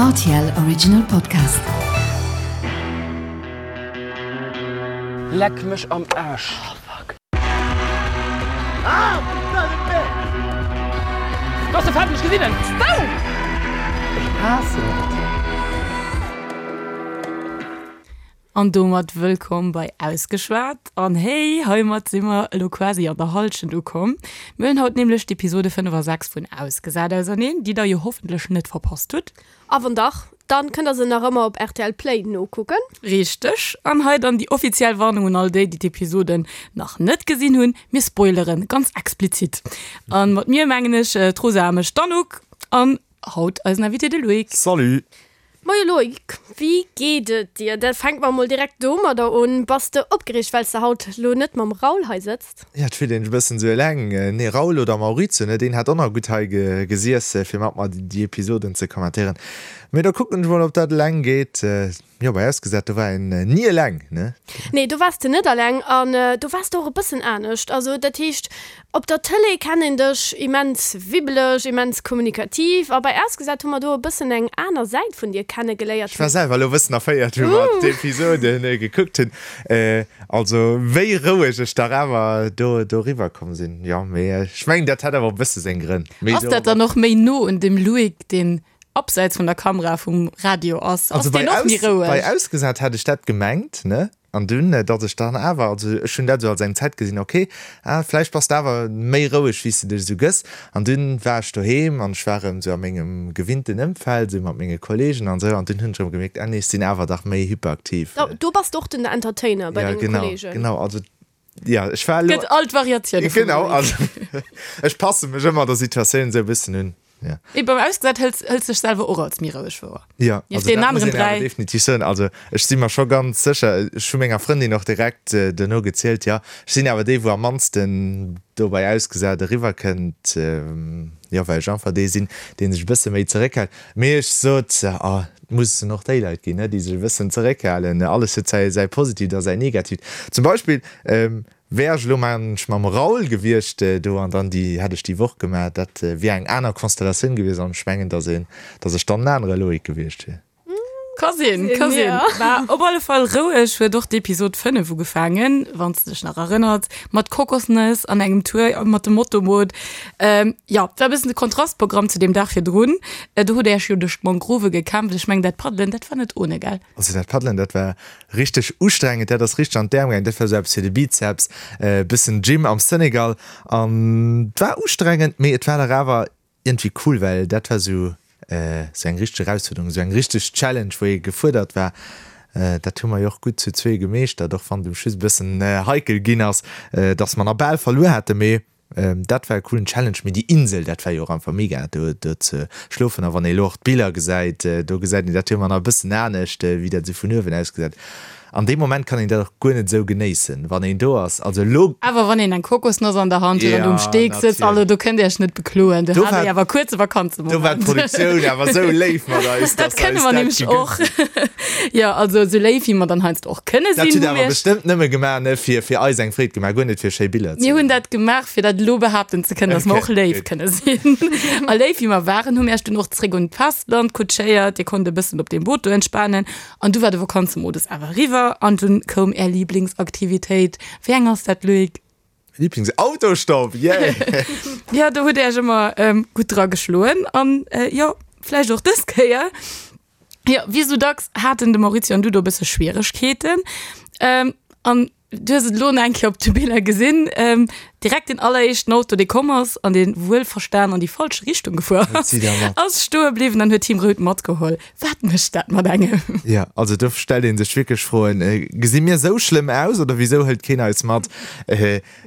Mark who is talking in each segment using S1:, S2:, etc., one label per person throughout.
S1: Rtl Original Podcast.
S2: Leck mech am Aasch. Do ass de Fetten, ech gesinn en. Ech haassen et.
S3: An domat wëllkomm bei Ausgeschwat. An hey, heimat si mer elo quasi an der Hallschent ukomm. Mir huelen haut nämlech d'Episode 5 a 6 vun Ausgesat auserneen, déi der jo hoffentlech net verpasst hutt.
S4: A wann dach, dann kënnt der se nach ëmmer op rtl Play nokucken.
S3: Richteg. An hei dann déi offiziell Warnung un all déi, déi d'Episoden nach net gesinn hunn, Mir spoileren ganz explizit. A mat mir mengen ech d'Rosa a mech, d'Anouk, an haut eisen Invité, de Loïc.
S5: Salut!
S4: Moie Loïc, wéi geet et dir? Da fänke mer mol direkt domadder un. Bass de opgereegt, well s de haut lo net mam Raoul hei sëtzt?
S5: Jo, et fillt een sech e bëssen esou eleng. Nee, Raoul oder Maurizio, ne, deen hätt och nach gutt hei gesiess, fir mat mer déi Episoden ze kommentéieren. Mee da kucken ech mol, ob dat eleng geet. Jo, bei Ausgesat, do war een ni eleng, ne?
S4: Nee, do waars de net eleng an do waars de och e bëssen anescht. Also dat heescht, Op der Tëlee kennt een dech immens wibbeleg, immens kommunikativ a bei Ausgesat hu mer do e bëssen eng aner Säit vun dir kenne geléiert.
S5: Ech war selwer elo e bëssen erféiert, wou mer d'Episode gekuckt hunn. Also wéi roueg ech dach awer do doriwwer komm sinn. Jo, mee ech mengen, dat hat awer och e bësse seng Grënn.
S3: Ass dat dann och méi no un dem Loïc, deen abseits vun der Kamera vum Radio ass? Ass deen och méi roueg?
S5: Bei Ausgesat hat ech dat gemengt, ne? An dunn, datt ech dann awer, also ech hunn dat esou als eng Zäit gesinn, ok, ah, vläicht bass de awer méi roueg, wéi s de dech esou gëss. An dunn war ech doheem an ech war erëm esou a mengem gewinnten Ëmfeld, esou mat menge Kolleegen an esou, an dunn hunn ech erëm gemierkt, ah nee, ech sinn awer dach méi hyperaktiv.
S4: Do bass de och den Entertainer bei
S5: Ja,
S4: denge
S5: genau,
S4: Kolleegen.
S5: genau, also ja, ech war elo.
S3: Gëtt all d'Variatioune vum
S5: Genau,
S3: Loïc.
S5: also ech passe mech ëmmer der Situatioun esou e bëssen un. Ja.
S3: Mee beim Ausgesat hëls hëls dech selwer och als méi roueg wouer.
S5: Ja,
S3: Nieft
S5: also
S3: deenen
S5: dat muss
S3: aneren
S5: een awer
S3: 3.
S5: definitiv soen. Also ech si mer scho ganz sécher, ech hu menger Frëndin och direkt duerno gezielt, jo, ech sinn awer dee wou am mannsten do bei Ausgesat eriwwer kënnt, jo, well ech einfach dee sinn, dee sech e bësse méi zeréckhält. Mee ech sot, ah, et mussen och déi Leit ginn, ne, déi sech e bëssen zeréckhalen. Alles huet säi säi Positiivt a säi Negatiivt. Zum Beispill, Wär ech elo mensch mam Raoul gewiescht do an dann déi hätt ech déi Woch gemaach, dat wier eng aner Konstellatioun gewiescht an ech mengen, dass een, dass ech dann en anere Loïc gewiescht wier.
S3: Ka sinn, ka sinn. War op alle Fall roueg huet och d'Episod 5 ugefaangen, wann s de dech nach erënnert, mat Kokosnëss an engem Tour mat dem Motoboot. Jo, war e bëssen de Kontrastprogramm zu deem Dag virdrun. Do hutt der iech jo duerch d'Mangrove gekämpft. Ech mengen, dat Paddelen, dat war net ohne, gell?
S5: Also dat Paddelen, dat war Richteg ustrengend, dat ass richteg an d'Äerm gaangen, dat war sou eppes fir de Bizeps, bëssen Gym am Senegal an war ustrengend, mee et war dach awer iergendwéi cool, well dat war sou sou eng richteg Erausfuerderung, sou eng richteg Challenge, wou ee gefuerdert war. Dat hu mer jo och gutt zu zwee gemeeschtert, och wann et um Schluss e bëssen heikel ginn ass, dass mer nach bal verluer haten, mee Dat war e coolen Challenge, mee déi Insel, dat war jo och einfach mega do do ze schlofen. A wann ee elo och d'Biller gesäit, do gesäit een dat jo ëmmer nach e bëssen anescht, wéi dat esou vun uewen ausgesäit. An deem Moment kann een dat och guer net esou genéissen, wann een do ass. Also elo.
S3: Awer wann een eng Kokosnoss an der Hand huet an do um Steek sëtzt, also do kënnt Dir Iech net bekloen. Do hat Dir awer kuerze Vakanzemoment.
S5: Do war d'Produktioun awer esou léif mat eis,
S3: dass se eis dat gegënnt hunn. Jo, also esou léif wéi mer dann heiansdo och kënne
S5: Dat
S3: sinn,
S5: hutt
S3: hu
S5: awer
S3: mir.
S5: bestëmmt nëmme gemaach, ne, fir, fir eis eng Freed gemaach, guer net fir schéi Biller ze
S3: Mir hunn dat gemaach, fir dat elo behaapten ze kënnen, dass mer
S5: Okay,
S3: och léif
S5: gutt.
S3: kënne sinn. A léif wéi mer waren, hu mir iech dunn och zréck un d'Festland kutschéiert. Dir konnt e bëssen op deem Boot do entspanen. An du war de Vakanzemodus awer eriwwer an dunn koum är Liblingsaktivitéit. Wéi eng ass dat, Loïc?
S5: Lieblings Autostopp, yeah!
S3: Jo, do hutt Dir iech ëmmer gutt dra geschloen. An jo, vläicht och dës Kéier. Jo, wéi esou dacks haten de Maurizio an du do e bësse Schwieregkeeten. An du hues et elo nach eng Kéier op de Biller gesinn, direkt deen alleréischten Auto, dee komm ass an dee wuelverstan an déi falsch Richtung gefuer ass, ass stoe bliwwen an huet Team Rout matgeholl. Wat mécht dat mat engem?
S5: Jo, also do stellt ee sech wierklech Froen, Gesi mir esou schlëmm aus oder wisou hëlt keen eis mat?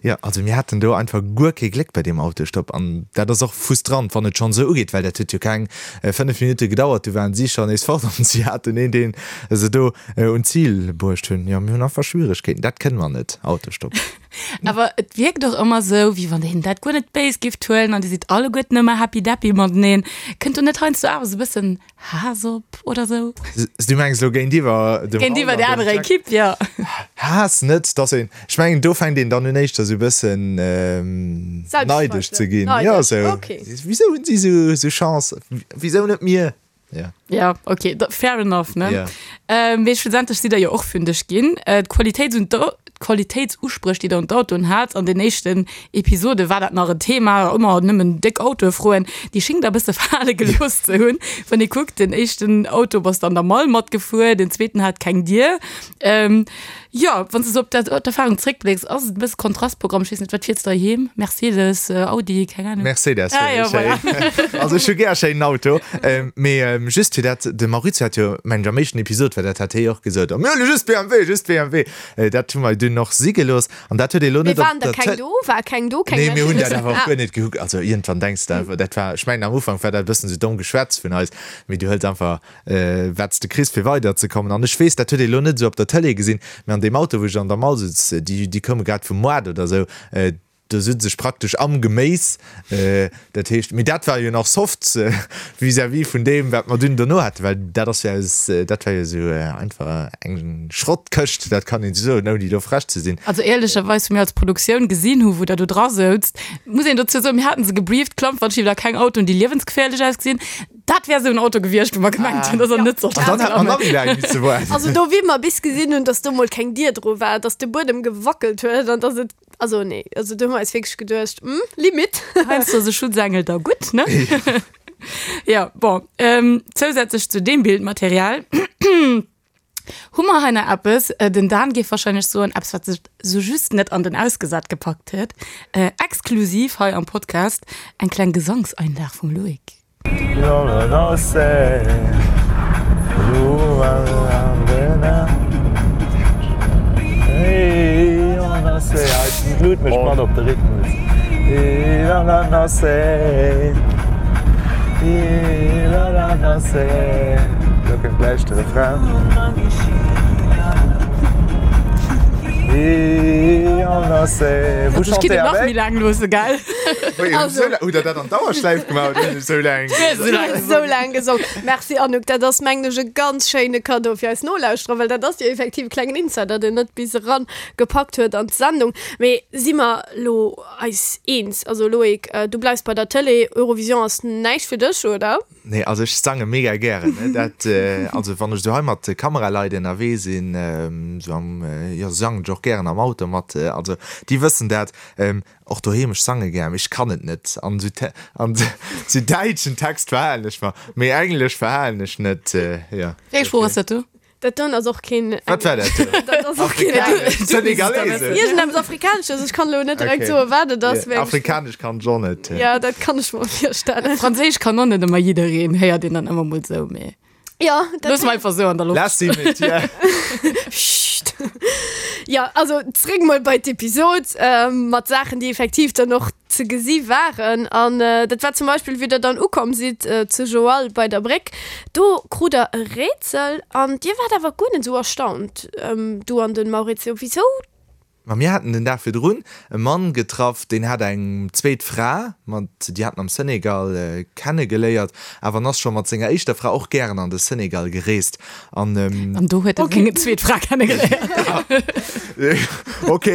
S5: Jo, also mir haten do einfach guer kee Gléck bei deem Autostopp an dat ass och frustrant, wann et schonn esou ugeet, well dat huet jo keng 5 Minutte gedauert, du waren si schonn nees fort an si haten een, deen se do un d'Zil bruecht hunn. Jo, mir hunn einfach Schwieregkeeten, dat kënne mer net, Autostopp.
S3: Awer et wierkt och ëmmer esou, wéi wann een dat guer net béis giff huelen an dir sidd alleguerten ëmmer happy-deppy mateneen. Kënnt do net heiansdo awer esou e bëssen Haass op oder sou?
S5: Du mengs elo géintiwwer dem
S3: Géintiwwer der anerer Ekipp, jo.
S5: Haass net, dass een, ech mengen do fänkt een dann un éischter sou bëssen neidesch ze ginn. Jo, sou, wisou hunn si sou Chance, wisou net mir? Ja.
S3: Ja, okay, da, fair enough, ne?
S5: Ja.
S3: Ähm, mee schlussendlech sidd der jo och fündeg ginn. Äh, d'Qualitéits un d'Qualitéitsuspréch, déi der un d'Autoen hat, an den éischten Episode war dat nach en Thema, ëmmer nëmmen déck Autoe froen, déi schéngt der e bësse fale gelooss ze hunn. Wann ee kuckt, den éischten Auto bass de an der Mall matgefuer, den zweeten hat keng Dier. Ähm, jo, wann s de sou op dat, op d'Erfarung zréckblécks, ass et e bësse Kontrastprogramm. Ech weess net, wat fiers de heiheem? Mercedes, Audi, keng Ahnung.
S5: Mercedes
S3: Ah
S5: fueren
S3: jo,
S5: ech héi.
S3: voilà.
S5: Also ech hu gär e schéinen Auto. Mee just fir dat, de Maurizio hat jo, mengen ech, am éischten Episod war dat, hat hie och gesot, oh mir huele just BMW, just BMW. Dat hu mer dunn och si gelooss an dat huet ee lo
S4: Mee
S5: net op
S4: waren der
S5: der
S4: keng
S5: Tël.
S4: do? War keng do? Keng
S5: Nee, mir hunn dat
S4: Mercedes?
S5: awer och
S4: Ah.
S5: guer net gekuckt. Also iergendwann denks de einfach, dat war, ech mengen am Ufank war dat e bëssen esou domm Geschwätz vun eis, mee du hëls einfach wat s de kriss fir weider ze kommen. An ech weess, dat huet ee lo net esou op der Tëlee gesinn, mee an deem Auto wou ech an der Mall sutz, déi déi koume grad vum Moart oder esou, do sutz ech praktesch am Geméis, dat heescht, mee dat war jo nach soft vis-à-vis vun deem wat mer dunn dono haten, well dat ass jo aus, dat war jo esou einfach eng Schrottkëscht, dat kann een esou soen, ouni do frech ze sinn.
S3: Also éierlecherweis, wou mir als Produktioun gesinn hu wou der do dra souzt, muss een dozou soen, mir haten se gebrieft, Klampfanschieber, keng Autoen déi liewensgeféierlech ausgesinn. Dat wär sou en Auto gewiescht, wou mer gemengt hunn, dass en net sollt
S5: An dann hätt mer nach méi laang misse waarden.
S4: Also do, wéi mer bis gesinn hunn, dass do mol keng Dier dru war, dass de Buedem gewackelt huet an dass et, also nee, also do hu mer eis wierklech geduecht, hm, Limite.
S3: Heiansdo ass e Schutzengel da gutt, ne? Jo, bon, zousätzlech zu deem Bildmaterial Hu mer hei nach eppes, den Dan géif wahrscheinlech soen, eppes wat sech sou just net an den Ausgesat gepackt huet, exklusiv hei am Podcast, eng kleng Gesangseinlag vum Loïc.
S5: Lo kënnt gläich de Refrain. Vous
S3: Ech kinnt
S5: chantez
S3: et nach méi
S5: avec?
S3: laang loosse, gell?
S4: Also.
S5: Hutt der dat an Dauerschläif gemaach oder hunn ech esou laang gesongen?
S4: Esou laang gesongen. Merci Anouk, dat ass mengen ech e ganz schéine Cadeau fir eis Nolauschterer, well dat ass jo effektiv e klengen Insider, deen net bis eran gepackt huet an d'Sendung. Mee si mer lo eis eens? Also Loïc, du bleifs bei der Tëlee, Eurovision ass näischt fir dech, oder?
S5: Nee, also ech sange mega gären, ne, dat, also wann ech esou hei mat Kameraleit ënnerwee sinn, esou am, jo sangen ech och gären am Auto mat, also déi wëssen dat, och doheem, ech sange gär, mee ech kann et net an esou, an esou däitschen Text verhalen ech mer, mee Englesch verhalen ech net, jo.
S3: Wéi eng Sprooch ass dat do?
S4: Dat doen ass och keen.
S5: Wat war dat do?
S4: Dat ass och keen.
S5: Afrikanesch, Senegalesesch.
S4: Iergendeppes Afrikanesches, ech kann elo net direkt
S5: Okay.
S4: soen, wat et ass.
S5: Ja, Afrikanesch kann ech och net.
S4: Ja, dat kann ech mer virstellen.
S3: Franséisch kann och net ëmmer jiddereen, héiert een dann ëmmer mol sou, mee
S4: Ja, dat
S3: loosse mer einfach sou an der Loft.
S5: Lass sie mit dir.
S4: Psst. Ja, also zréck mol bei d'Episod ähm, mat Saachen, déi effektiv dann och ze gesi waren. An dat war zum Beispill, wéi der dann ukomm sidd zu Joal bei der Bréck. Do krut der e Rätsel an dir waart awer guer net esou erstaunt, du an den Maurizio. Wisou?
S5: Ma mir haten den Dag virdrun e Mann getraff, deen hat eng zweet Fra, mat déi hat en am Senegal kennegeléiert, awer en ass scho mat senger éischter Fra och gären an de Senegal gereest. An,
S3: An do huet e seng zweet Fra kennegeléiert.
S5: Ok,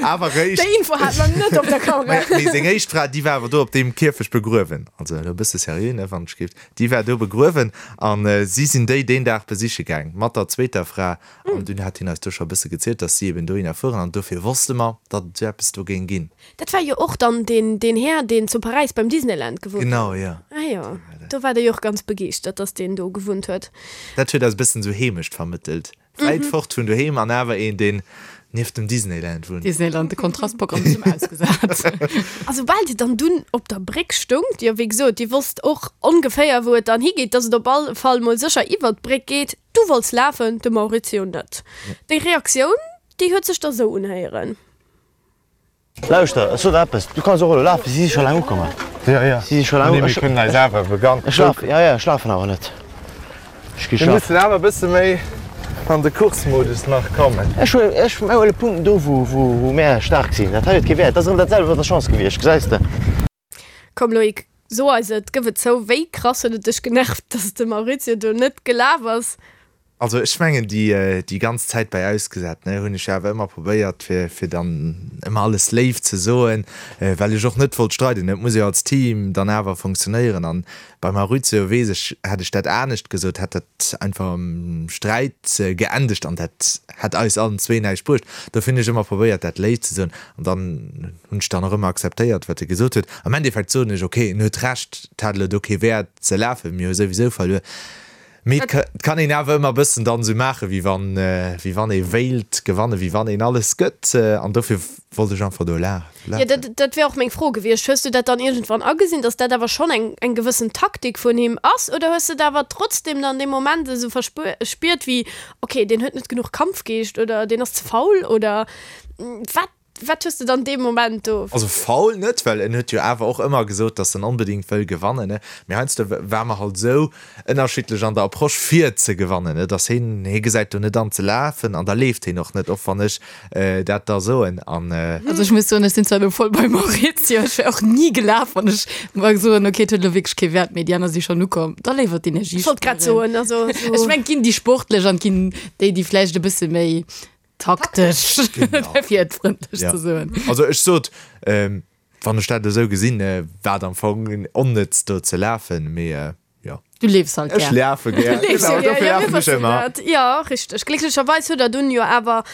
S5: awer réischt.
S4: Déi Info hat mer net op der Kamera.
S5: Mee seng éischt Fra, déi war awer do op deem Kierfecht begruewen. Also elo e bësse seriö, ne, wann ech géif. Déi war do begruewen an si sinn déi deen Dag besiche gaang mat der zweeter Fra. An dunn hat hien eis do scho e bësse gezielt, datt si eben dohinner fueren an dofir wosste mer, datt et esou eppes do géing ginn.
S4: Dat war jo och dann deen, deen Här, deen zu Paräis beim Disneyland gewunnt huet.
S5: Genau, jo.
S4: Ah jo, do war der jo och ganz begeeschtert, datt deen do gewunnt huet.
S5: Dat huet eis e bëssen esou Heemecht vermëttelt. Wäit fort vun doheem an awer een, deen nieft dem Disneyland wunnt.
S3: Disneyland, de Kontrastprogramm zum Ausgesat.
S4: A soubal Dir dann dunn op der Bréck stoungt, jo wéi gesot, Dir wosst och ongeféier wou et dann higeet, dass et op all Fall mol sécher iwwert d'Bréck geet, du wollts lafen, de Maurizio net. Déi Reaktioun, déi huet sech da sou unhéieren.
S6: Lauschter, ech sot der eppes, du kanns och elo lafen, si si scho laang ukomm.
S5: Jo, jo,
S6: Si si scho laang
S5: nee, mir kënnen eis awer begann.
S6: Ech lafen, jo, jo, ech lafen awer net. Ech gi
S5: Mir
S6: schlafen.
S5: mussen awer e bësse méi an de Course-Modus nach kommen.
S6: Ech huelen, ech huele Punkten do, wou, wou, wou mär staark sinn. Dat hei huet kee Wäert. Dat ass erëm dat selwecht mat der Chance gewiescht, gesäis de.
S4: Komm Loïc, so eis et, gëff et zou, wéi krass huet et dech genervt, dass de Maurizio do net gelaf ass?
S5: Also ech mengen déi déi ganz Zäit bei Ausgesat ne hunn ech jo awer ëmmer probéiert fir fir dann ëmmer alles léif ze soen, well ech och net wollt streiden. Et muss jo als Team dann awer funktionéieren an beim Maurizio weess ech, hätt ech dat anescht gesot, hätt dat einfach am Sträit geendegt an dat hätt eis allen zwee näischt bruecht. Dofir hunn ech ëmmer probéiert dat léif ze soen an dann hunn ech dann och ëmmer akzeptéiert wat e gesot huet. Am Endeffekt soen ech, ok en huet Recht, et hat elo do kee Wäert ze lafen, mir hu souwisou verluer. Mee et kann een awer ëmmer e bëssen dann esou maachen, wéi wann, wéi wann ee wéilt gewannen, wéi wann een alles gëtt. An dofir wollt ech einfach do lafen.
S4: Jo, dat, dat wär och meng Fro gewiescht. Hues du dat dann iergendwann agesinn, dass dat awer schonn eng, eng gewëssen Taktik vun him ass? Oder hues de et awer trotzdem dann dee Moment esou verspiert wéi, okay, deen huet net genuch Kampfgeescht oder deen ass ze faul oder wat? Wat hues de dann dee Moment do?
S5: Also faul net, well en huet jo awer och ëmmer gesot, dass en onbedéngt wëll gewannen, ne. Mee heiansdo war mer halt esou ënnerschiddlech an der Approche fir ze gewannen, ne, dass heen, hee gesäit do net an ze lafen an da leeft heen och net, och wann ech dat da soen an.
S3: Also ech muss soen, ech sinn zwar elo voll beim Maurizio, ech wär och ni gelaf, wann ech mer soen, ok, et huet elo wierklech kee Wäert méi, déi aner si schonn ukomm, da léiwer d'Energie
S4: Ech wollt grad
S3: spueren.
S4: soen, also esou.
S3: Ech mengen, et ginn déi Sportlech an et ginn déi, déi vläicht e bësse méi Taktesch, fir et frëndlech ze soen.
S5: Also ech sot, wann ech dat esou gesinn, war et am Fong onnëtz do ze lafen, mee jo.
S3: Du leefs halt
S5: gär. Ech lafe gär, genau, dofir lafen ech ëmmer.
S4: Jo, richteg. Glécklecherweis hutt der dunn jo awer,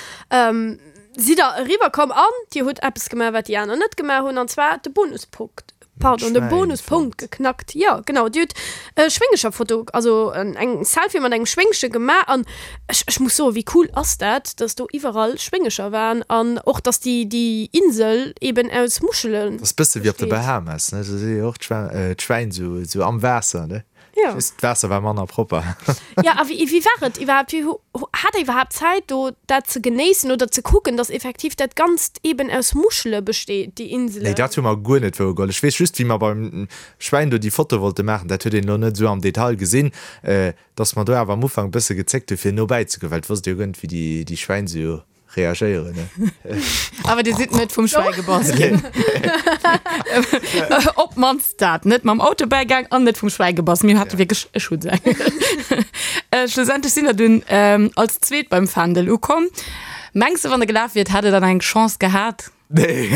S4: sidd der eriwwer komm an dir hutt eppes gemaach, wat déi aner net gemaach hunn, an zwar de Bonuspunkt Pardon, de Bonuspunkt geknackt. Jo, genau, Dir hutt e Schwéngecherfoto, also eng Selfie mat engem Schwéngche gemaach an ech, ech muss soen, wéi cool ass dat, dass do iwwerall Schwéngecher waren an och, dass déi, déi Insel eben aus Muschele
S5: Dat ass bësse wéi op de Bahamas, ne? Do si jo och d'Schwäin esou am Waasser, ne?
S4: Ja.
S5: Just d'Waasser war manner propper.
S4: Ja, a wéi, wéi war et iwwerhaapt? Wéi hu, hat der iwwerhaapt Zäit do dat ze genéissen oder ze kucken, dass effektiv dat Ganzt eben aus Muschele besteet, déi Inselen?
S5: Nee, dat hu mer guer net wouergeholl. Ech weess just, wéi mer beim Schwäin do déi Foto wollte maachen, dat huet een elo net esou am Detail gesinn, dass mer do awer am Ufank e bësse gezéckt hu fir no bäizegoen, well et wosst ee jo guer net, wéi déi, déi Schwäin esou reagéieren, ne?
S3: Awer Dir sidd net vum Schwäi gebass ginn. Op d'mannst dat. Net mam Auto bäigaang an net vum Schwäi gebass. Mir hate wierklech e Schutzengel. Schlussendlech sinn der dunn als Zweet beim Fändel ukomm. Mengs de, wann der gelaf wiert, hätt der dann eng Chance gehat?
S5: Nee.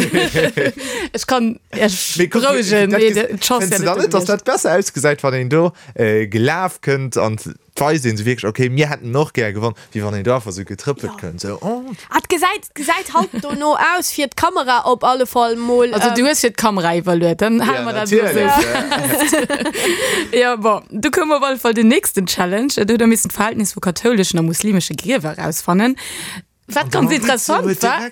S3: Ech kann Iech berouegen, nee, d'Chance
S5: Fënns
S3: wär
S5: de dann
S3: net
S5: net,
S3: do
S5: dass dat
S3: gewiescht.
S5: besser ausgesäit, wann een do gelaf kënnt an D'weist een sou wierklech, ok, mir hätten och gär gewonn, wéi wann een do einfach sou getrëppelt kënnt, sou, oh.
S4: Ah, et gesäit, gesäit halt dono aus, fir d'Kamera op alle Fall mol.
S3: Also du hues fir d'Kamera iwwerluet, dann hale mer dat elo sou fest. Jo, bon, du koum op alle Fall den nächsten Challenge. Do huet der missen d'Verhältnis vu kathouleschen a muslimesche Griewer erausfannen. Wat ganz interessant war,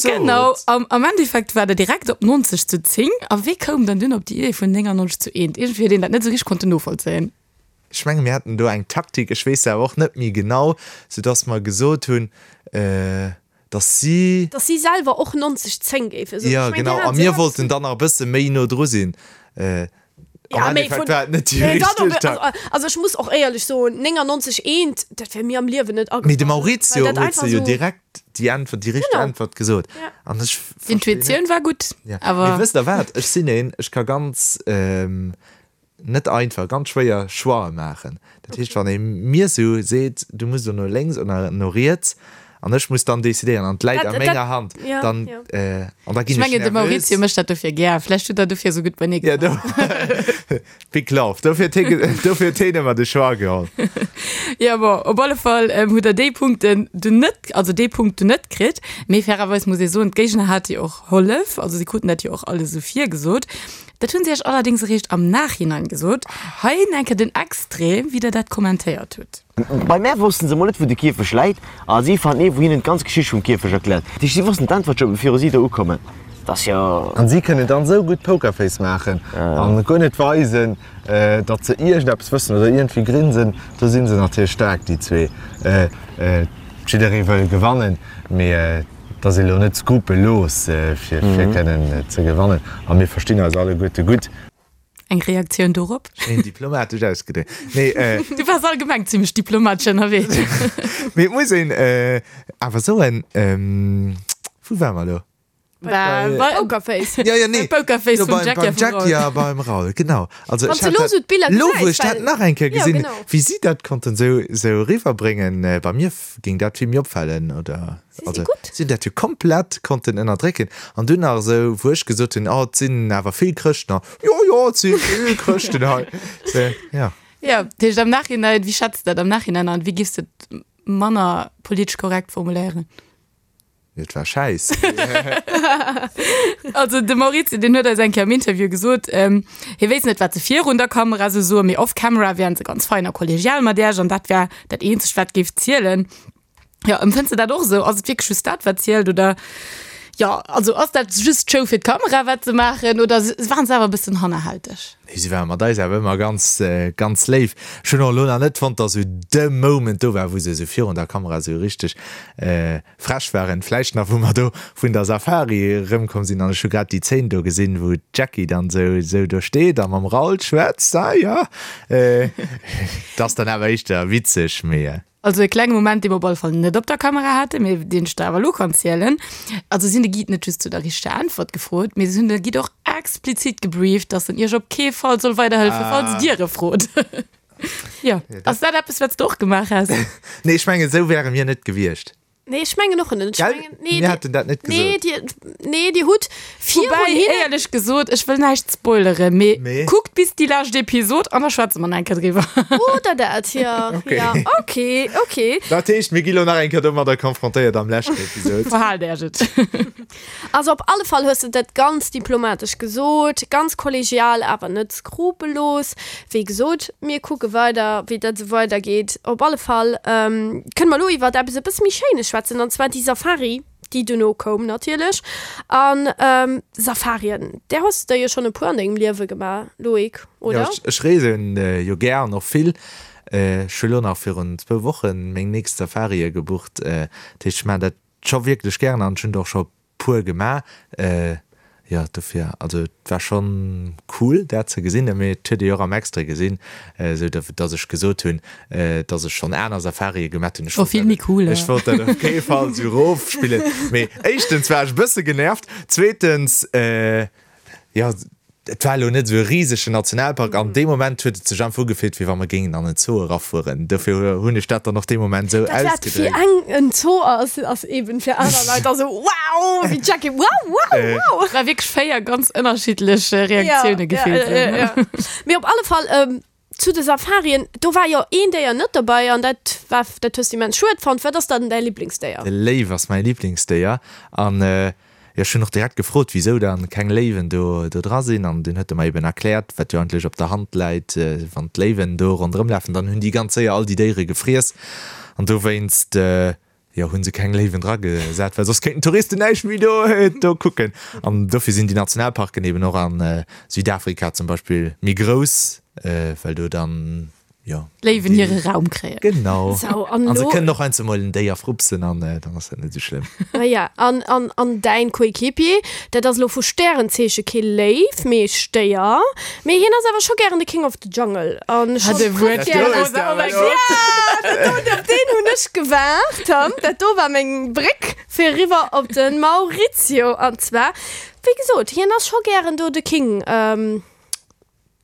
S3: genau, am, am Endeffekt war der direkt op 90 zu 10. A wee koum dann dunn op déi Idee vun 99 zu 1? Iergendwéi huet een dat net sou richteg konnten novollzéien.
S5: Ech menge mir haten do eng Taktik, ech weess se awer och net méi genau, soudass mer gesot hunn, dass si.
S4: Dass si selwer och 90, 10 géife soen.
S5: Jo, genau. A mir wollten dann nach e bësse méi no dru sinn. Am Endeffekt war et net déi richteg Taktik.
S4: Also ech muss och éierlech soen, 99, 1, dat wär mir am Liewen net agefall.
S5: Mee de Maurizio huet se jo direkt déi Äntwert, déi richteg Äntwert gesot. An ech verstinn net.
S3: D'Intuitioun war gutt, awer.
S5: Mee wësst Der wat, ech sinn een, ech ka ganz. Net einfach, ganz schwéier Choix'e maachen. Dat heescht, wann ee mir sou seet, du muss elo no lénks oder no riets an ech muss dann decidéieren an et läit a menger Hand, dann, an da
S3: Ech
S5: ginn ech
S3: mengen, de
S5: nervös.
S3: Maurizio mécht dat dofir gär. Vläicht huet der dofir sou gutt beienee
S5: Ja, do, Big love. Dofir huet hie, dofir huet hien ëmmer de Choix geholl.
S3: Jo, bon, op alle Fall hutt der déi Punkten dunn net, also dee Punkt dunn net kritt. Mee fairerweis muss ee soen, d'Géigner hate jo och Hollef, also si kruten dat jo och alles esou virgesot. Dat hunn si iech allerdéngs eréischt am Nachhinein gesot. Hei enke den Extrait, wéi der dat kommentéiert hutt.
S6: Bei mär wossten se mol net wou de Kierfech läit a si fannen ee wou hinnen d'ganz Geschicht vum Kierfech erkläert. Dat heescht si wossten d'Äntwert scho viru si do ukommen. Dat ass jo.
S5: An si kënnen dann esou gutt Pokerface maachen an guer net weisen, datt se iergendeppes wëssen oder iergendwéi grinsen. Do si se natierlech staark, déi zwee. Jidderee wëll gewannen, mee Et ass ee lo net skrupellos fir kënnen ze gewannen a mir verstinn eis alleguerte gutt.
S3: Eng Reaktioun dorop?
S5: Schéin diplomatesch ausgedréckt. Nee,
S3: Du waars allgemeng zimmlech diplomatesch ënnerwee.
S5: Mee et muss een awer soen, wou ware mer elo?
S3: Bei
S4: Pokerface.
S5: Ja, ja, nee.
S3: Pokerface
S5: Jo,
S3: vum
S5: beim,
S3: Jackie
S5: beim
S3: a vum
S5: Jackie
S3: Raoul.
S5: a beim Raoul, genau. Also
S4: Wann
S5: ech
S4: du
S5: hat
S4: lo
S5: dat,
S4: sou d'Biller
S5: lo wou
S4: gesäis,
S5: ech dat
S4: well
S5: nach eng Kéier
S4: jo,
S5: gesinn,
S4: genau.
S5: wéi si dat konnten sou, sou eriwwerbréngen, bei mir géing dat vill méi opfalen, oder?
S4: Si si
S5: Also
S4: gutt.
S5: si hunn dat jo komplett konnten ënnerdrécken. An dunn nach esou, wou ech gesot hunn, oh, et sinn awer vill Chrëschten hei. Jo, jo, et si vill Chrëschten hei. Sou, ja.
S3: Jo, dat heescht am Nachhinein, wéi schätz de dat am Nachhinein an? Wéi giffs de et manner politesch korrekt formuléieren?
S5: Et war schäiss.
S3: Also de Maurizio, deen huet eis eng Kéier am Interview gesot, hie wéisst net, wat se virun der Kamera esou soen, mee off camera wären se ganz fein a kollegial mat Iech an dat wär dat eenzegt, wat géif zielen. Jo, empfënns de dat och esou? Ass et wierklech just dat, wat zielt oder jo, also ass dat just d'Show fir d'Kamera, wat se maachen oder waren se awer e bëssen hannerhälteg?
S5: Nee, si ware mat eis awer ëmmer ganz, ganz léif. Ech hunn och elo nach net fonnt, dass esou de Moment do war, wou se esou virun der Kamera esou richteg frech waren. Vläicht nach, wou mer do vun der Safari erëmkomm sinn an ech hu grad déi Zeen do gesinn, wou d'Jackie dann esou, esou do steet a mam Raoul schwätzt. Ah jo, dat ass dann awer éischter witzeg, mee.
S3: Also e klenge Moment, dee mer op alle Fall net op der Kamera haten, mee deen ech der awer elo kann zielen. Also si hunn de Guide net just zu der richteger Äntwert gefrot, mee si hunn de Guide och explizit gebrieft, dass en iech op kee Fall soll weiderhëllefen, falls dir e frot. Jo, ass dat eppes, wat s de och gemaach häss?
S5: Nee, ech mengen, esou wäre mir net gewiescht.
S4: Nee, ech mengen och net. Ech
S5: Gell?
S4: mengen, nee,
S5: Mir haten dat net
S4: nee,
S5: gesot.
S4: dir, nee, dir hutt virun
S3: Woubäi,
S4: hinnen.
S3: éierlech gesot, ech wëll näischt spoileren, mee
S5: Mee?
S3: kuckt bis déi lescht Episod an da schwätze mer nach eng Kéier driwwer.
S4: Oder dat, ja.
S5: Okay.
S4: Ja, okay, okay.
S5: Dat heescht, mir gi lo nach eng Kéier domadder konfrontéiert am leschten Episod.
S3: Verhaalt Äech et.
S4: Also op alle Fall hues de dat ganz diplomatesch gesot, ganz kollegial, awer net skrupellos. Wéi gesot, mir kucke weider, wéi dat esou weidergeet. Op alle Fall kënne mer elo iwwert eppes e bësse méi Schéines schwätzen, an zwar déi Safari, déi duerno koum natierlech. A Safarien, där hues de der jo schonn e puer an dengem Liewe gemaach, Loïc, oder?
S5: Jo, ech reesen jo gär an och vill. Ech hu lo nach virun zwou Woche meng nächst Safarie gebucht. Dat heescht, ech maachen dat scho wierklech gären an ech hunn der och scho puer gemaach. Jo, dofir, also et war schonn cool dat ze gesinn, mee et huet ee jo och am Extrait gesinn, esou datt ech gesot hunn, datt ech schonn aner Safarie gemat hunn. Ech
S3: War vill méi cool.
S5: Ech wollt dat op kee Fall esou erofspillen, mee éischtens war ech e bësse genervt, zweetens, Jo, et war elo net esou e risegen Nationalpark an dee Moment huet et sech einfach ugefillt, wéi wa mer géingen an en Zoo erafueren. Dofir hunn ech dat dann och dee Moment esou
S4: Dat wat fir
S5: ausgedréckt.
S4: eng en Zoo ass, ass eben fir aner Leit da sou wow, wéi d'Jackie, wow, wow, wow.
S3: Et war wierklech 4 ganz ënnerschiddlech Reaktioune gefillt.
S4: Ja, ja, ja. Mee op alle Fall, zu de Safarien, do war jo een Déier net dobei an dat war, dat hues de immens schued fonnt. Wat ass dann däi Liblingsdéier?
S5: De Léiw ass mäi Liblingsdéier an jo, ech hunn och direkt gefrot, wisou dann keng Léiwen do do dra sinn an dunn huet e mer eben erkläert, wat jo eigentlech op der Hand läit, wann d'Léiwen do ronderëm lafen, dann hunn déi ganz séier all déi Déiere gefriess an dowéinst Jo, hunn se keng Léiwen dra gesat, well soss kéinten d'Touristen näischt méi do do kucken. An dofir sinn déi Nationalparken eben och a Südafrika zum Beispill méi grouss, well do dann, jo.
S3: D'Léiwen hire Raum kréien.
S5: Genau.
S4: Sou, an
S5: An se
S4: elo.
S5: kënnen och heiansdo mol en Déier frupsen an dann ass dat net esou schlëmm.
S4: Ah ja, an, an, an däin Coéquipier, dat ass elo vu Stärenzeeche kee Léiw, mee Stéier. Mee hien ass awer scho gären de King of the Jungle an
S3: Hat e Wuert
S4: Op deen hunn ech gewaart. Dat do war meng Bréck fir eriwwer op de Maurizio. An zwar, wéi gesot, hien ass scho gären do de King.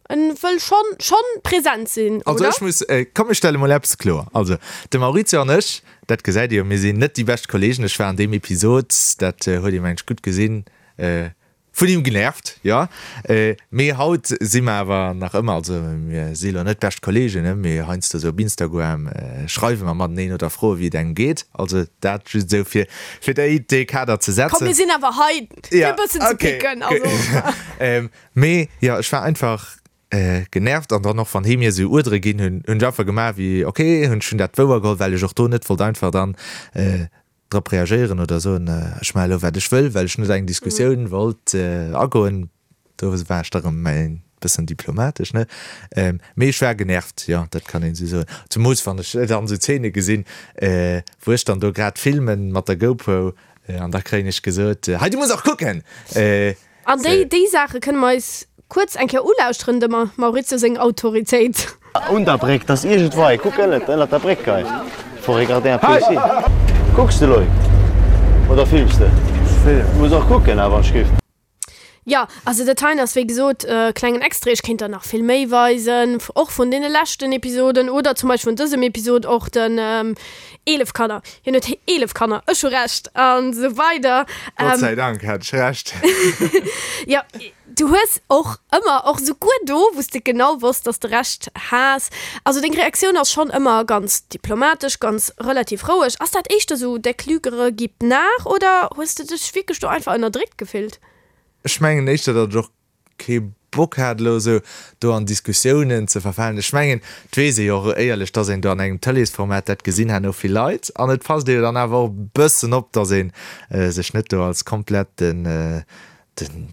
S4: En wëll schonn schonn present sinn,
S5: Also
S4: oder?
S5: ech muss, komm ech stelle mol eppes kloer. Also de Maurizio an ech, dat gesäit Dir jo, mir sinn net déi bescht Kollegen. Ech war an deem Episod, dat huet ee mengen ech gutt gesinn, Vun him genervt, jo. Mee haut si mer awer nach ëmmer, also mir si lo net bescht Kollegen, ne, mee heiansdo sou op Instagram schreiwe mer mateneen oder froe wéi et engem geet. Also dat just esou fir fir déi dee Kader ze
S4: Komm, mir
S5: setzen.
S4: sinn awer hei fir e bëssen ze picken, also.
S5: Mee jo, ech war einfach genervt an dann och wann hee mir esou Uerdere ginn hunn, hunn ech einfach gemaach wéi ok, hunn ech hunn dat wouer geholl, well ech och do net wollt einfach dann drop reagéieren oder soen, ech maache elo wat ech wëll, well ech net eng Diskussioun wollt agoen. Do war ech da rëm e bëssen diplomatesch, ne? Mee ech war genervt, jo, dat kann een esou soen. Zemools wann ech dann esou Zeene gesinn, wou ech dann do grad filmen mat der GoPro an da kréien ech gesot, Hei, du muss och kucken!
S4: An déi, déi Saache kënne mer eis kuerz eng Kéier ulauschteren, dem Maurizio seng Autoritéit.
S6: Un der Bréck, 't ass iergendwei, kuck ënnert, ënnert der Bréck hei, faut regarder un peu ici. Kucks de Loïc oder films de? vill. Muss och kucken awer, ech géif.
S4: Jo, also dat heien ass wéi gesot e klengen Extrait. Ech kéint der nach vill méi weisen, och vun deene leschten Episoden oder zum Beispill vun dësem Episod och den 11 Kanner. Hien huet 11 Kanner, ech hu Recht an esou weider.
S5: Gott sei Dank hat ech Recht.
S4: Jo, du hues och ëmmer, och souguer do, wou s de genau wosst, dass de Recht has, also deng Reaktioun ass schonn ëmmer ganz diplomatesch, ganz relativ roueg. Ass dat éischter esou der Klügere gibt nach oder hues de dech wierklech do einfach ënnerdréckt gefillt?
S5: Ech mengen éischter, datt ech och kee Bock hat elo esou do an Diskussiounen ze verfalen. Ech mengen, et weess ee jo och éierlech, datt een do an engem Tëleesformat dat gesinn herno vill Leit an et passt ee jo dann awer och e bëssen op, datt ee sech net do als komplett den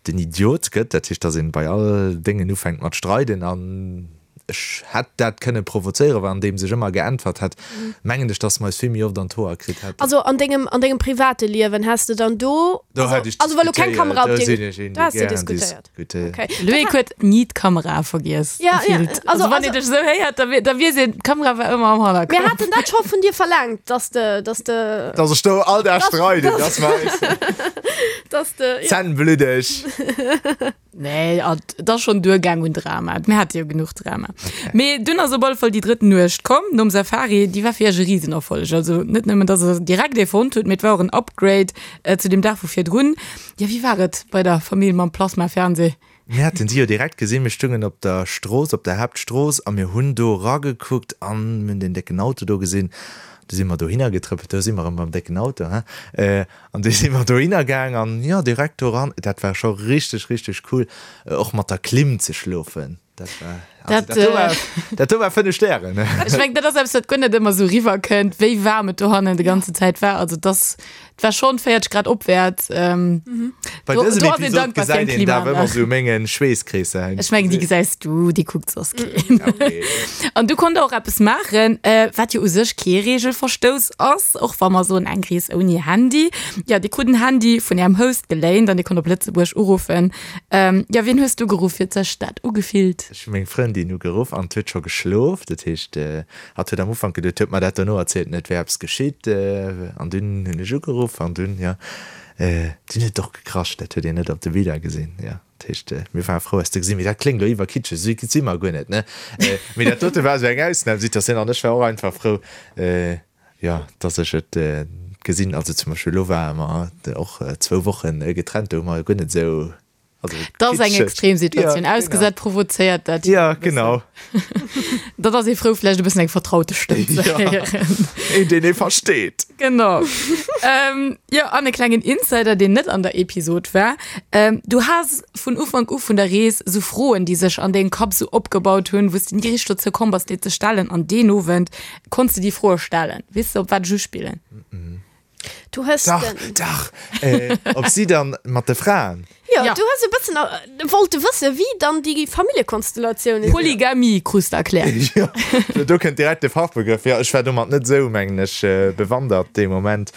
S5: den Idiot gëtt. Dat heescht, datt een bei all Déngen ufänkt mat streiden an Ech hätt dat kënne provozéieren, well andeems ech ëmmer geäntwert hätt, mengen ech, dass mer eis vill méi oft an d'Hoer kritt hätten.
S4: Also an dengem, an dengem private Liewen häss de dann do,
S5: Do hätt ech
S4: also well lo keng
S5: diskutéiert,
S4: Kamera op
S5: do
S4: dir,
S5: sinn ech een,
S4: do
S5: dee
S4: häss de
S5: gären
S4: diskutéiert.
S5: diskutéiert.
S4: Okay.
S3: Loïc huet ni d'Kamera vergiess,
S4: Ja, ja,
S3: gefillt.
S4: also,
S3: Also wann
S4: also
S3: een dech esou héiert, da da weess een, d'Kamera war ëmmer am
S4: Mir
S3: Hannergrond.
S4: haten dat scho vun dir verlaangt, dass de, dass de,
S5: Dass ech do all Dag
S4: dass,
S5: streiden,
S4: dass,
S5: dass mer eis
S4: dass de, ja.
S5: Zänn bluddeg.
S3: Nee, et ass schonn duergaang un Drama. Mir hate jo genuch Drama. Mee dunn ass op alle Fall déi drëtt Nuecht komm, nom Safari. Déi war fir iech e Risenerfolleg. Also net nëmmen, dass der direkt ee fonnt hutt, mee et war och en Upgrade zu deem Dag vu virdrun. Jo, wéi war et bei der Famill mam Plasma-Fernseh?
S5: Mir haten si jo direkt gesinn. Mir stungen op der Strooss, op der Haaptstrooss a mir hunn do eragekuckt an mir hunn deen décken Auto do gesinn. Du si mer dohinner getrëppelt, do si mer erëm beim décken Auto, hein. An du si mer dohinner gaang an jo, direkt do ran. Dat war scho richteg, richteg cool, och mat der Klimm ze schlofen. Dat war, also dat do war, dat do war 5 Stären.
S3: Ech mengen, dat ass eppes, wat guer net ëmmer esou riwwerkënnt, wéi waarm et dohannen déi ganze Zäit war. Also et ass, et war schonn 40 Grad opwäerts.
S5: Bei
S3: Do,
S5: dësem
S3: do ass een
S5: Episod
S3: dankbar fir eng
S5: gesäit een dat awer ëmmer
S3: Klimaanlag.
S5: esou mengen Schweesskreesser.
S3: Ech mengen, déi gesäis du, déi kuckt soss keen.
S5: Okay.
S3: An du konnt och eppes maachen, wat jo u sech kee Reegelverstouss ass, och wa mer soen, eng Rees ouni Handy. Jo, Dir krut en Handy vun Ärem Host geléint an Dir konnt op Lëtzebuerg uruffen. Jo, wien hues du geruff? Wéi huet sech dat ugefillt?
S5: Ech hu meng Frëndin ugeruff an 't huet scho geschlof. Dat heescht, hatt huet am Ufank geduet, huet mer dat dono erzielt, net wär eppes geschitt. An dunn hunn ech ugeruff an dunn, jo, dunn huet et och gekrasch. Dat huet een net op de Biller gesinn, jo. Dat heescht, mir ware frou eis ze gesinn. Mee dat kléngt elo iwwerkitscheg, esou si mer guer net, ne? Mee dat dote war esou eng Ausnamsituatioun an ech war och einfach frou, jo, dass ech et gesinn. Also zum Beispill elo ware mer och zwou Woche getrennt, do hu mer guer net esou, also
S3: Dat ass eng
S5: kitscheg.
S3: Extremsituatioun.
S5: Ja, genau.
S3: Ausgesat provozéiert dat jo
S5: Ja,
S3: e bëssen.
S5: genau.
S3: Dat ass ee frou, vläicht e bëssen eng vertraute Stëmm ze
S5: Ja,
S3: héieren.
S5: een, deen ee versteet.
S3: Genau. ähm, jo, an e klengen Insider, deen net an der Episod war. Ähm, du has vun Ufank u vun der Rees sou Froen, déi sech an dengem Kapp sou opgebaut hunn, wou s de ni richteg dozou komm bass, déi ze stellen. An deen Owend konns de déi Froe stellen. Weess de, op wat ech uspillen?
S4: Du hues
S5: Dach,
S4: den.
S5: dach! Äh, ob si dann mat de Fraen.
S4: Jo,
S3: Ja.
S4: du hues e bëssen äh, wollte wësse wéi dann déi Familljekonstellatiounen sinn.
S3: Polygamie krus de erkläert.
S5: Jo, do kënnt direkt de Fachbegrëff. Jo, ech war domat net esou, mengen ech, bewandert dee Moment.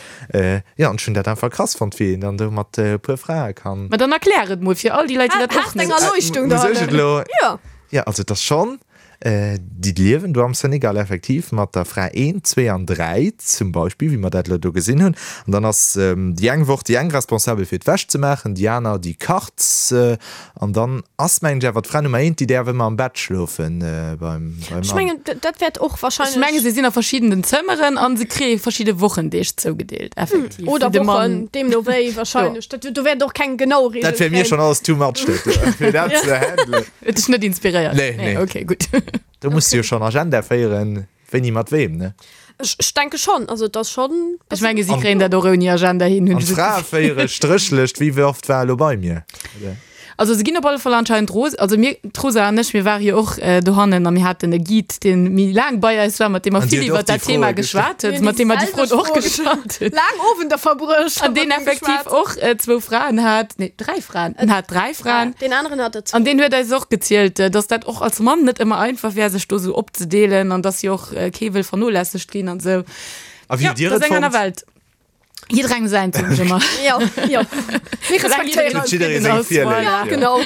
S5: Jo, an ech hunn dat einfach krass fonnt, wéi een dann do mat e puer Frae kann.
S3: Ma dann erklär et mol fir all déi Leit, déi dat och
S4: Haas deng
S3: net.
S4: Erleuchtung
S5: Muss ech et
S4: dohannen.
S5: elo?
S4: Jo.
S5: Jo, also et ass schonn. Déi liewen do am Senegal effektiv mat der Fra 1, 2 an 3 zum Beispill, wéi mer dat elo do gesinn hunn. An dann ass déi eng Woch déi eng responsabel fir d'Wäsch ze maachen, déi aner déi kacht. An dann ass mengen ech awer d'Fra Nummer 1, déi däerf ëmmer am Bett schlofen beim
S4: Ech
S5: Mann.
S4: mengen, dat wäert och
S3: Ech
S4: wahrscheinlech.
S3: menge se sinn a verschiddenen Zëmmeren an se kréie verschidde Wochendeeg zougedeelt, effektiv.
S4: Oder
S3: Wou de
S4: Wochen,
S3: Mann.
S4: deemno wéi wahrscheinlech. Dat, do wäert och keng genau Reegel
S5: Dat wär mir
S4: kréien.
S5: schonn alles too much, dat do, fir dat ze handelen.
S3: Huet dech net inspiréiert?
S5: Nee, nee.
S3: Okay, gutt.
S5: Do muss du jo schonn Agenda féieren, wéini mat weem, ne?
S4: Ech, ech denke schonn, also et ass schonn.
S3: Ech menge si kréien dat och ouni Agenda hin, hunn
S5: An
S3: ech esou
S5: d'Frae
S3: d'Gefill.
S5: féiere Stréchlëscht, wie oft war elo bei mir? Oder?
S3: Also se ginn op alle Fall anscheinend ros, also mir, d'Rosa an ech, mir ware jo och dohannen a mir haten e Guide, dee méi laang bei eis war, mat deem mer
S5: An
S3: vill
S5: dir huet och
S3: iwwer
S5: déi
S3: dat Thema
S5: Froe gestallt.
S3: geschwat huet, mat deem mer déi Froen och gestallt hunn.
S4: Laang Owender verbruecht.
S3: An deen effektiv och zwou Fraen hat, nee, dräi Fraen, en hat dräi Fraen.
S4: Deen aneren hat der zwou.
S3: An deen huet eis och gezielt, dass dat och als Mann net ëmmer einfach wär, sech do sou opzedeelen an dass jo och kee wëll vernolässegt ginn an sou.
S5: A wéi
S3: Jo,
S5: hutt Dir
S3: dat
S5: et
S3: ass eng aner
S5: fonnt?
S3: Welt. Jidderengem säint, soen ech ëmmer.
S4: Jo, jo. Mir respektéieren.
S5: Huet jidderee seng Virléift,
S4: Ja,
S5: jo.
S4: genau.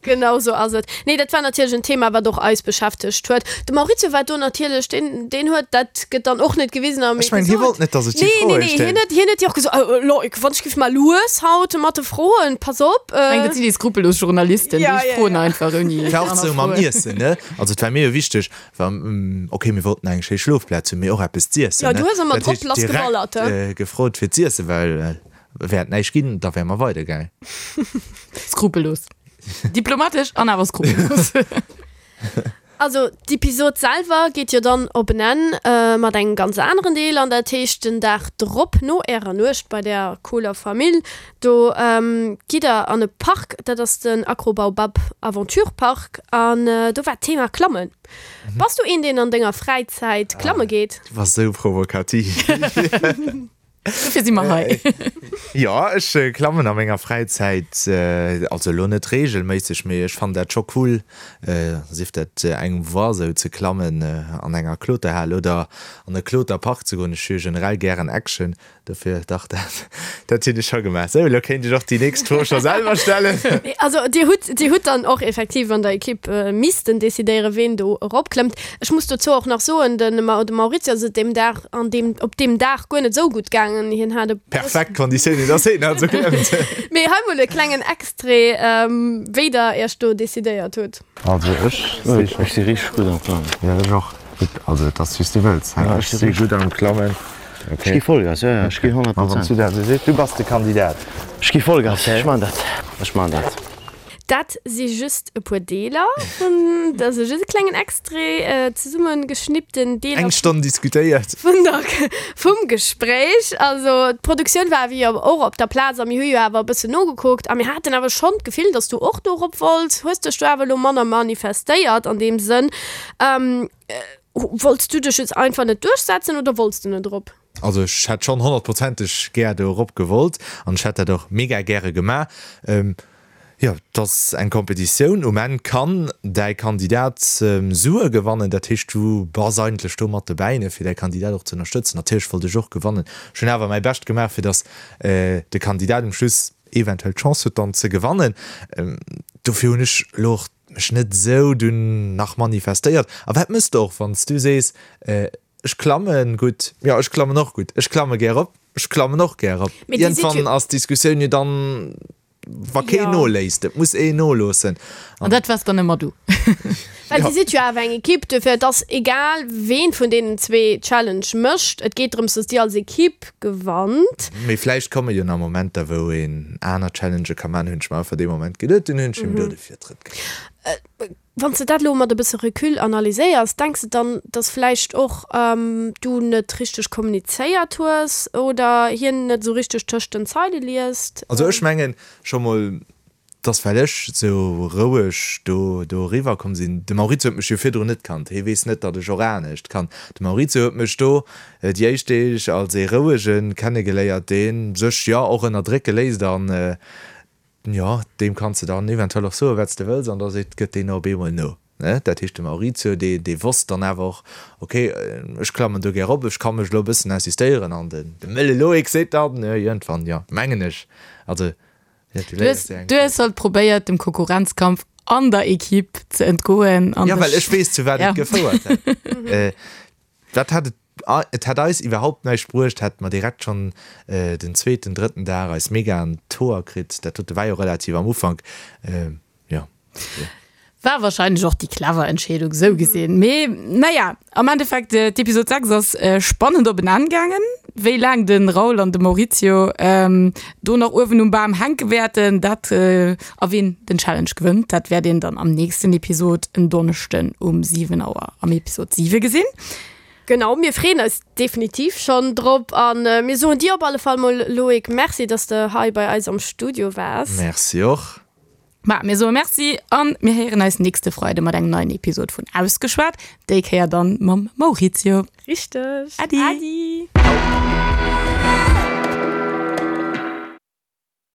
S4: Genau sou ass et. Nee, dat war natierlech en Thema, wat och eis beschäftegt huet. De Maurizio war do natierlech, deen, deen huet, dat gëtt dann och net gewisen am
S5: Ech mengen, hie
S4: Episod.
S5: wollt net, dass ech déi
S4: Nee, nee,
S5: Froe
S4: nee, hien
S5: stellen.
S4: huet, hien huet jo och gesot, oh, Loïc, wann ech giff mal lues haut mat de Froen, pass op.
S3: Ech mengen, dat sinn déi skrupellos Journalisten,
S4: Ja,
S3: déi
S4: ja,
S3: froen
S4: ja.
S3: einfach ouni
S5: Et war och
S3: aner
S5: sou mam
S3: Froen.
S5: Iessen, ne? Also et war mir jo wichteg, wa, okay, mir wollten eng schéi Schlofplaz hunn, mee och eppes z'iessen,
S4: Ja,
S5: ne?
S4: du hues ëmmer
S5: Dat
S4: drop
S5: heescht,
S4: lass
S5: direkt
S4: geballert, he?
S5: gefrot fir z'iessen, well wär et näischt ginn, da wäre mer weidergaangen.
S3: Skrupellos. Diplomatesch an awer skrupellos.
S4: Also d'Episod selwer geet jo dann op en Enn mat engem ganz aneren Deel an dat heescht den Dag drop no ärer Nuecht bei der cooler Famill, do gitt der an e Park, dat ass den Acrobaobab Aventure Park an do war d'Thema Klammen. Bass du een deen an denger Fräizäit klamme geet?
S5: Du bass esou provokativ.
S3: Dofir si mer hei.
S5: Jo, ech klammen a menger Fräizäit, also elo net reegelméisseg, mee ech fannen dat scho cool, sief dat eng Voie sou ze klammen an enger Kloterhal oder an e Kloterpark ze goen. Ech hu jo generell gären Action, dofir dach, dat dat hunn ech scho gemaach. Sou, elo kéint ech och déi nächst Fro scho selwer stellen.
S4: Also dir hutt, dir hutt dann och effektiv an der Ekipp missten decidéieren, ween do eropklëmmt. Ech muss dozou och nach soen, de Maurizio ass et deem Dag an deem, op deem Dag guer net esou gutt gaangen. Hien hat e
S5: Perfekt Konditiounen, dass hien also klëmmt.
S4: Mee hei mol e klengen Extrait, wéi der iech do decidéiert hutt.
S5: Also ech si scho.
S6: Ech si richteg gutt am Klammen.
S5: Jo ech och. Gutt, also et ass wéi s du wëlls.
S6: Ja,
S5: Ech si gutt am Klammen.
S6: Ech gi Vollgas, jo jo, ech gi 100
S5: Ma wann s
S6: Prozent.
S5: du dat esou sees, du bass de Kandidat.
S6: Ech gi Vollgas, ech man dat, ech man dat.
S4: Dat si just e puer Deeler vun, dat ass just e klengen Extrait, zesumme geschnippten Deeler.
S5: Eng Stonn diskutéiert.
S4: Vun der, vum Gespréich. Also d'Produktioun war awer jo och op der Plaz a mir hu jo awer e bëssen nogekuckt a mir haten awer schonn d'Gefill, datt s du och do erop wollts. Hues dech do awer elo manner manifestéiert an deem Sënn. Wollts du dech just einfach net duerchsetzen oder wollts du net erop?
S5: Also ech hätt schonn honnertprozenteg gär do erop gewollt an ech hätt dat och mega gäre gemaach. Jo, et ass eng Competitioun, um Enn kann däi Kandidat Sue gewannen, dat heescht du bass eigentlech do mat dobäi, ne, fir däi Kandidat och ze ënnerstëtzen. Natierlech wollt ech och gewannen, ech hunn awer mäi Bescht gemaach, fir datt de Kandidat um Schluss eventuell d'Chance huet dann ze gewannen. Dofir hunn ech elo och mech net esou dunn nach manifestéiert. A wat mëss de och, wann s du sees, Ech klammen gutt. Jo, ech klammen och gutt. Ech klamme gär op. Ech klammen och gär op.
S4: Mee dir sidd
S5: Iergendwann
S4: jo.
S5: ass d'Diskussioun jo dann, wa keen
S4: Jo.
S5: noléisst. Et muss een noloossen.
S3: An dat waars dann ëmmer du.
S4: Well dir sidd jo awer eng Ekipp, duerfir et ass egal, ween vun deenen zwee d'Challenge mécht. Et geet drëms, datt dir als Ekipp gewannt.
S5: Mee vläicht komme jo nach Momenter, wou een aner Challengë ka maachen, hunn ech mer einfach dee Moment geduet. Dunn hunn ech him do de Virtrëtt ginn.
S4: Wann s de dat elo mat e bësse Recul analyséiers, denks de dann, dass vläicht och du net richteg kommunizéiert hues oder hien net esou richteg tëscht den Zeile liest?
S5: Also ech mengen scho mol, dass well ech esou roueg do do eriwwer komm sinn, de Maurizio huet mech jo virdrun net kannt, hie weess net, datt ech och anescht kann. De Maurizio huet mech do déi éischt Deeg als ee rouege kennegeléiert, dee sech jo och ënnerdrécke léisst an Jo, deem kanns de dann eventuell och soen, wat s de wëlls, an da seet, gëtt deen op eemol no. Ne? Dat heescht, de Maurizio, dee, dee wosst dann awer och, ok, ech klammen do gär op, ech ka mech elo e bëssen insistéieren. An den, de mëlle Loïc seet dann iergendwann, jo, mengen ech, also, jo, du
S3: Du hues,
S5: léiers jo eng
S3: du hues halt probéiert, dem Konkurrenzkampf an der Equipe ze entgoen an
S5: Jo, well
S3: dech,
S5: ech weess, zu wat
S3: ja.
S5: et gefouert hätt. Dat hätt et, et hätt eis iwwerhaupt näischt bruecht, hätte mer direkt schonn den zweeten, drëtten Dag eis mega an d'Hoer kritt. Dat dote war jo relativ am Ufank, jo.
S3: War wahrscheinlech och déi clever Entscheedung, esou gesinn. Mee naja, am Endeffekt, d'Episod 6 ass spannend op en Enn gaangen. Wéi laang de Raoul an de Maurizio do nach uewen um Bam hänke wäerten, dat, a wien den Challenge gewënnt, dat wäert een dann am nächsten Episod en Donneschden um 7 Auer am Episod 7 gesinn.
S4: Genau, mir freeën eis definitiv schonn drop a mir soen dir op alle Fall mol, Loïc, Merci, dass de hei bei eis am Studio waars.
S5: Merci och.
S3: Ma mir soe Merci an mir héieren eis nächste Freide mat engem neien Episod vun Ausgeschwat, déi Kéier dann mam Maurizio.
S4: Richteg.
S3: Äddi.
S4: Äddi.
S5: Ciao.